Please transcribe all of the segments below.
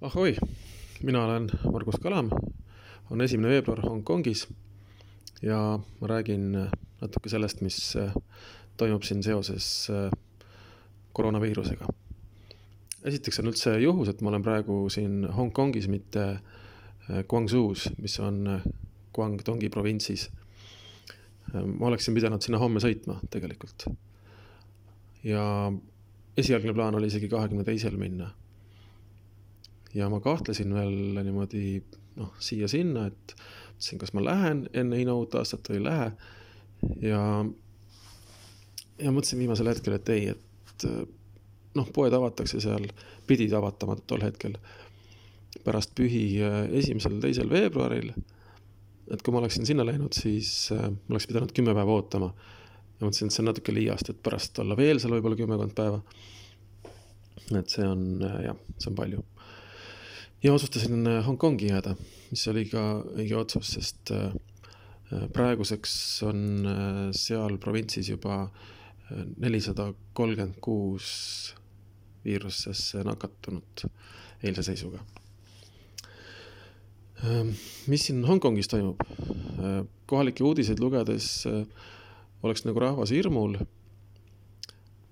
Ahoi, mina olen Margus Kalam, on 1. veebruar Hongkongis ja ma räägin natuke sellest, mis toimub siin seoses koroonaviirusega. Esiteks on üldse juhus, et ma olen praegu siin Hongkongis, mitte Guangzhous, mis on Guangdongi provintsis. Ma oleksin pidanud sinna homme sõitma tegelikult. Ja esialgne plaan oli isegi 22. minna. Ja ma kahtlesin veel niimoodi siia-sinna, et mõtlesin, kas ma lähen enne Hiina uut aastat või ei lähe. Ja mõtlesin viimasel hetkel, et ei, et poed avatakse seal, pidid avatama tol hetkel pärast pühi 1.–2. veebruaril. Et kui ma oleksin sinna läinud, siis ma oleks pidanud 10 päeva ootama. Ja mõtlesin, et see on natuke liiast, et pärast olla veel seal võib-olla 10 päeva. Et see on palju. Ja otsustasin Hongkongi jääda, mis oli ka õige otsus, sest praeguseks on seal provintsis juba 436 viirusesse nakatunud eilse seisuga. Mis siin Hongkongis toimub? Kohalike uudiseid lugedes oleks nagu rahvas hirmul.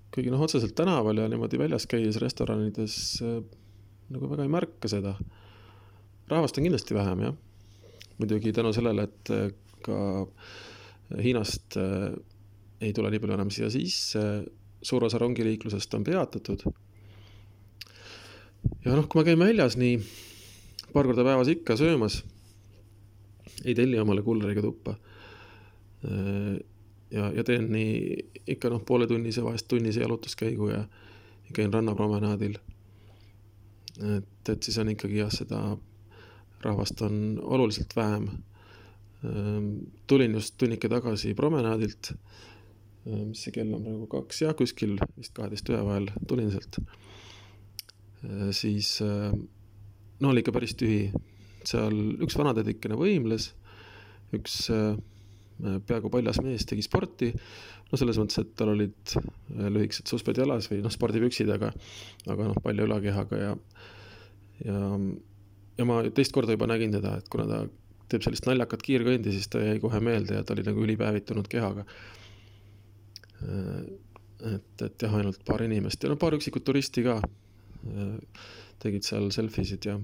Kuigi otseselt tänaval ja niimoodi väljas käies restoranides nagu väga ei märka seda. Rahvast on kindlasti vähem, jah. Muidugi tänu sellele, et ka Hiinast ei tule nii palju enam siia sisse, suur osa rongiliiklusest on peatatud. Ja kui ma käin väljas nii paar korda päevas ikka söömas, ei telli omale kulleriga tuppa. Ja teen nii ikka pooletunnise, vahest tunnise jalutuskäigu ja käin rannapromenaadil. Et siis on ikkagi seda rahvast on oluliselt vähem. Tulin just tunnike tagasi promenaadilt, mis see kell on praegu 2 ja kuskil vist 12 vahel tulin sealt. Siis oli ikka päris tühi. Seal üks vanadedikene võimles, üks peaaegu paljas mees tegi sporti. Selles mõttes, et tal olid lühikesed susped jalas või spordipüksid, aga palju ülakehaga ja ma teist korda juba nägin teda, et kuna ta teeb sellist naljakat kiirkõndi, siis ta jäi kohe meelde ja ta oli nagu ülipäevitunud kehaga. Et jah, ainult paar inimest ja paar üksikut turisti ka tegid seal selfisid ja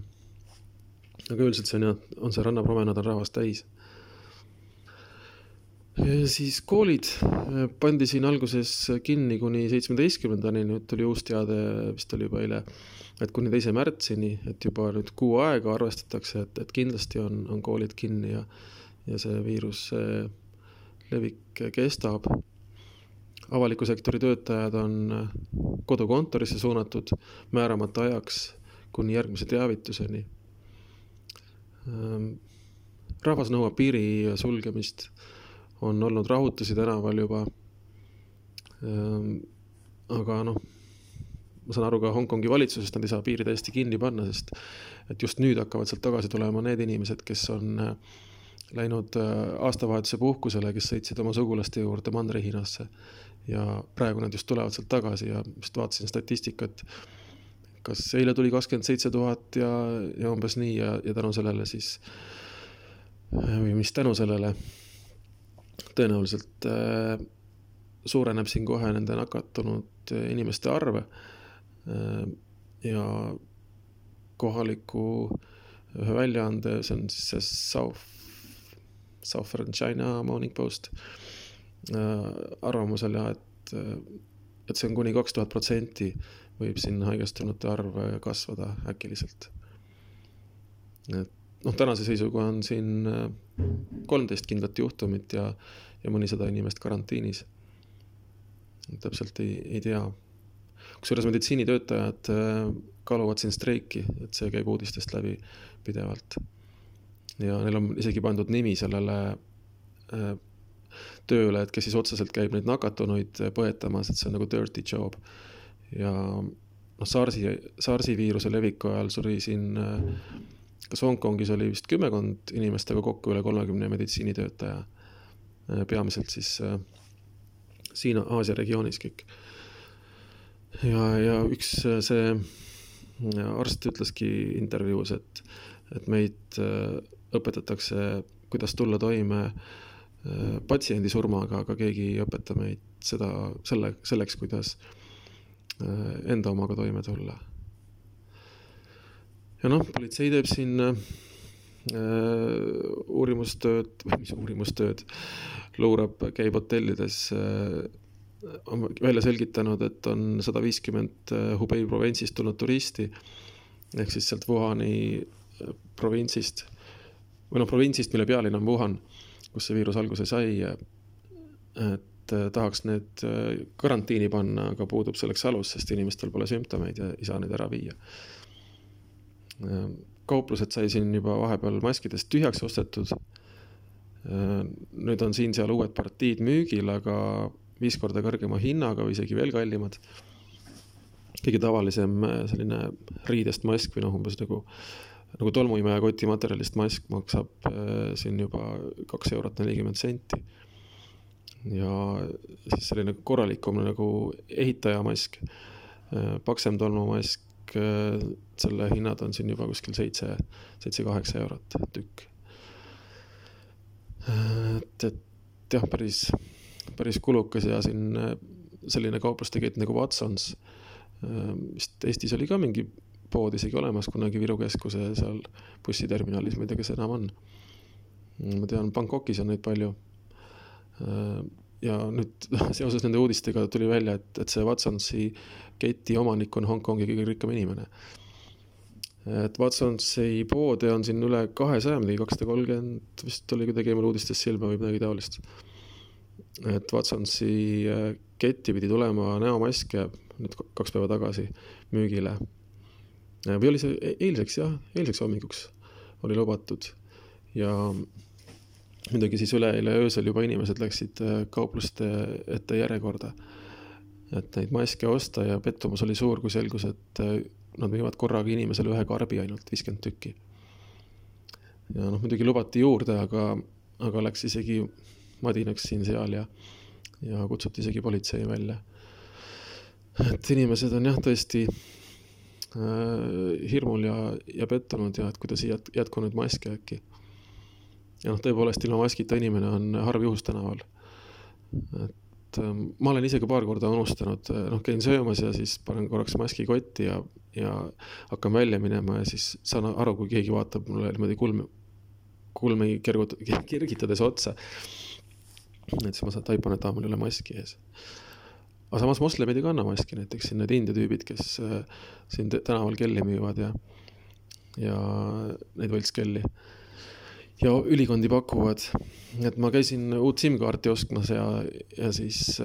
aga üldiselt see on see rannapromenaad on rahvast täis. Ja siis koolid pandi siin alguses kinni kuni 17-ndani, nüüd tuli uus teade, vist oli juba eile, et kuni 2. märtsini, et juba nüüd kuu aega arvestatakse, et kindlasti on koolid kinni ja see viirus levik kestab. Avaliku sektori töötajad on kodukontorisse suunatud määramata ajaks kuni järgmise teavituseni. Rahvas nõuab piiri sulgemist. On olnud rahutusi tänaval juba. Aga ma saan aru ka Hongkongi valitsusest, nad ei saa piiri täiesti kinni panna, sest et just nüüd hakkavad sealt tagasi tulema need inimesed, kes on läinud aastavahetuse puhkusele, kes sõitsid oma sugulaste juurde Mandri-Hiinasse. Ja praegu nad just tulevad sealt tagasi ja just vaatasin statistikat, kas eile tuli 27 000 ja umbes nii ja tänu sellele siis, või mis tänu sellele, tõenäoliselt suureneb siin kohe nende nakatunud inimeste arve ja kohaliku ühe väljaande, see on siis see Southern China Morning Post arvamusel ja, et see on kuni 2000% võib siin haigestunute arv kasvada äkiliselt. Tänase seisuga on siin 13 kindlat juhtumit ja mõnisada inimest karantiinis. Täpselt ei tea. Kusjuures meditsiinitöötajad kaaluvad siin streiki, et see käib uudistest läbi pidevalt. Ja neil on isegi pandud nimi sellele tööle, et kes siis otseselt käib neid nakatunuid põetamas, et see on nagu dirty job. Ja SARS-i viiruse leviku ajal suri siin kas Hongkongis oli vist 10 inimestega kokku üle 30 meditsiinitöötaja, peamiselt siis siin Aasia regioonis kõik. Ja üks see arst ütleski intervjuus, et meid õpetatakse, kuidas tulla toime patsiendi surmaga, aga keegi ei õpeta meid selleks, kuidas enda omaga toime tulla. Ja politsei teeb siin uurimustööd, luurab, käib hotellides, on välja selgitanud, et on 150 Hubei provintsist tulnud turisti, ehk siis sealt Wuhani provintsist, provintsist, mille pealinn on Wuhan, kus see viirus alguse sai, et tahaks need karantiini panna, aga puudub selleks alus, sest inimestel pole sümptomeid ja ei saa neid ära viia. Kauplused sai siin juba vahepeal maskidest tühjaks ostetud. Nüüd on siin seal uued partiid müügil, aga 5 korda kõrgema hinnaga või isegi veel kallimad. Kõige tavalisem selline riidest mask või umbes nagu tolmuimeja kotimaterjalist mask maksab siin juba 2,40 €. Ja siis selline korralikum nagu ehitajamask, paksem tolmumask, selle hinnad on siin juba kuskil 7-8 eurot tükk. Et jah, päris kulukas ja siin selline kauplustegett nagu Watsons, vist Eestis oli ka mingi pood isegi olemas kunagi Viru keskuse seal bussiterminalis, ma ei tea, kes enam on. Ma tean, Bangkokis on neid palju. Ja nüüd seoses nende uudistega tuli välja, et see Watsonsi keti omanik on Hongkongi kõige rikkam inimene. Et Watsonsi poode on siin üle 200, 230, vist oli kuidagi eemal uudistes silma või midagi taolist. Et Watsonsi ketti pidi tulema näomaske nüüd 2 päeva tagasi müügile. Või oli see eilseks hommikuks oli lubatud. Ja muidugi siis üleeile öösel juba inimesed läksid kaupluste ette järjekorda, et neid maske osta ja pettumus oli suur, kui selgus, et nad müüvad korraga inimesele 1 karbi ainult 50 tükki. Ja muidugi lubati juurde, aga läks isegi madinaks siin seal ja kutsuti isegi politsei välja. Et inimesed on tõesti hirmul ja pettunud ja et kuidas ei jätku nüüd maske äkki. Ja tõepoolest ilma maskita inimene on harv juhus tänaval. Et ma olen ise ka paar korda unustanud, käin söömas ja siis panen korraks maski kotti ja hakkan välja minema ja siis saan aru, kui keegi vaatab mulle niimoodi kulmi kergitades otsa. Et siis ma taipan, et mul ei ole maski ees. Aga samas moslemid ei kanna maski, näiteks siin need India tüübid, kes siin tänaval kelli müüvad ja neid võltskelli. Ja ülikondi pakuvad, et ma käisin uut SIM-kaarti ostmas ja siis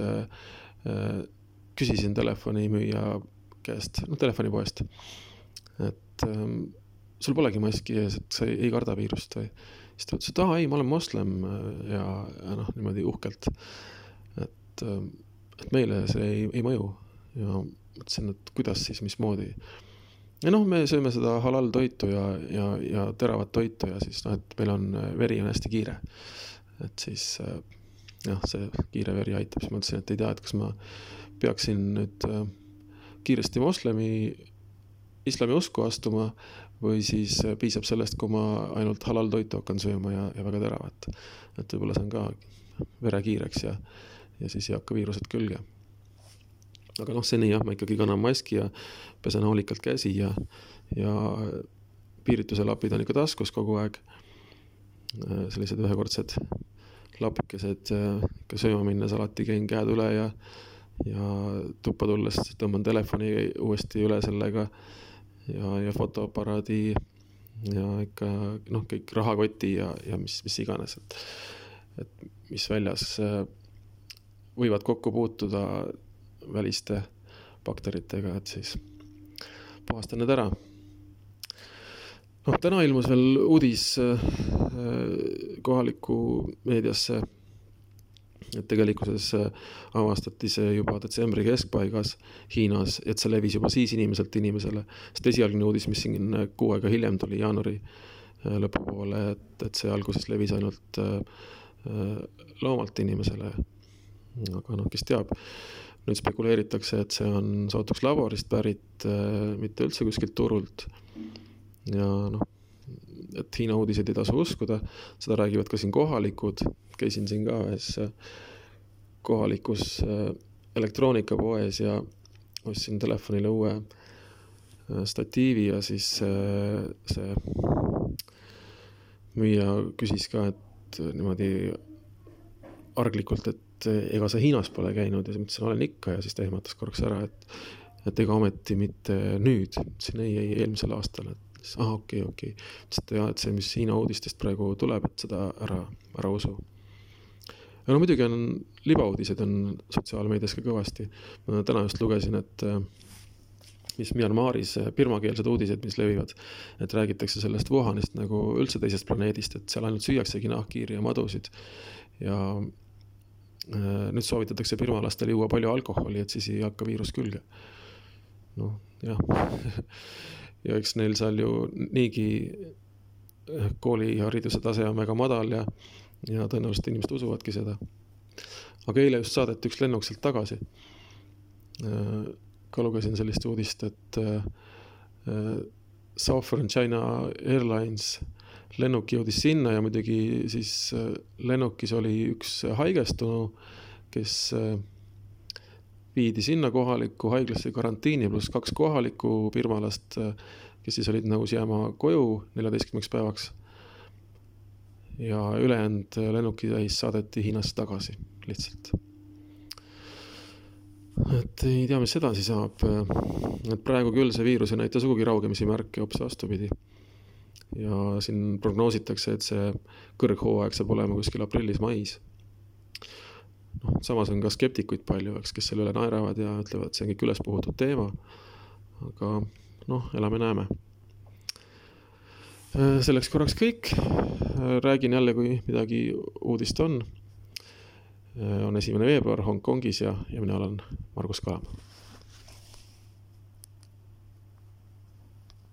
küsisin telefonimüüja käest, telefonipoest, et sul polegi maski ees, et sa ei karda viirust või? Siis ta ütles, et ei, ma olen moslem ja niimoodi uhkelt, et meile see ei mõju ja mõtlesin, et kuidas siis, mismoodi. Ja me sööme seda halal toitu ja teravat toitu ja siis et meil on veri on hästi kiire. Et siis see kiire veri aitab. Siis ma mõtlesin, et ei tea, et kas ma peaksin nüüd kiiresti islami usku astuma või siis piisab sellest, kui ma ainult halal toitu hakkan sööma ja väga teravat. Et võib-olla see on ka vere kiireks ja siis ei hakka viirused külge. Aga seni ma ikkagi kannan maski ja pesen hoolikalt käsi ja piirituse lapid on ikka taskus kogu aeg. Sellised ühekordsed lapikesed, ikka sööma minnes alati käin käed üle ja tuppa tulles tõmban telefoni uuesti üle sellega ja fotoaparaadi ja ikka kõik rahakoti ja mis iganes, et mis väljas võivad kokku puutuda väliste bakteritega, et siis puhastan need ära. Täna ilmus veel uudis kohalikku meediasse, et tegelikkuses avastati see juba detsembri keskpaigas Hiinas, et see levis juba siis inimeselt inimesele. Sest esialgne uudis, mis siin kuu aega hiljem tuli jaanuari lõpupoole, et see alguses levis ainult loomalt inimesele. Aga kes teab. nüüd spekuleeritakse, et see on sootuks laborist pärit, mitte üldse kuskilt turult. Ja noh, et Hiina uudiseid ei tasu uskuda, seda räägivad ka siin kohalikud. Käisin siin ka ühes kohalikus elektroonikapoes ja ostsin telefonile uue statiivi ja siis see müüja küsis ka, et niimoodi arglikult, et ega sa Hiinas pole käinud ja siis mõtlesin, olen ikka ja siis ta ehmatas korraks ära, et ega ometi mitte nüüd, ütlesin ei eelmisel aastal, et okei. Ütlesin, et see, mis Hiina uudistest praegu tuleb, et seda ära usu. Ja no muidugi on libauudised on sotsiaalmeedias ka kõvasti. Ma täna just lugesin, et mis Myanmaris birmakeelsed uudised, mis levivad, et räägitakse sellest Wuhanist nagu üldse teisest planeedist, et seal ainult süüaksegi nahkhiiri ja madusid. Ja nüüd soovitatakse birmalastel juua palju alkoholi, et siis ei hakka viirus külge. Noh, jah. Ja eks neil seal ju niigi koolihariduse tase on väga madal ja tõenäoliselt inimesed usuvadki seda. Aga eile just saadeti üks lennuk sealt tagasi. Ka lugesin sellist uudist, et Southern China Airlines lennuk jõudis sinna ja muidugi siis lennukis oli üks haigestunu, kes viidi sinna kohaliku haiglasse karantiini pluss 2 kohalikku birmalast, kes siis olid nõus jääma koju 14 päevaks. Ja ülejäänud lennuki täis saadeti Hiinasse tagasi lihtsalt. Et ei tea, mis edasi saab. Et praegu küll see viirus ei näita sugugi raugemisi märke hoopis vastupidi. Ja siin prognoositakse, et see kõrghooaeg saab olema kuskil aprillis-mais. No, samas on ka skeptikuid palju, kes selle üle naeravad ja ütlevad, et see on kõik üles puhutud teema. Aga noh, elame-näeme. Selleks korraks kõik. Räägin jälle, kui midagi uudist on. On 1. veebruar Hongkongis ja mina olen Margus Kalam.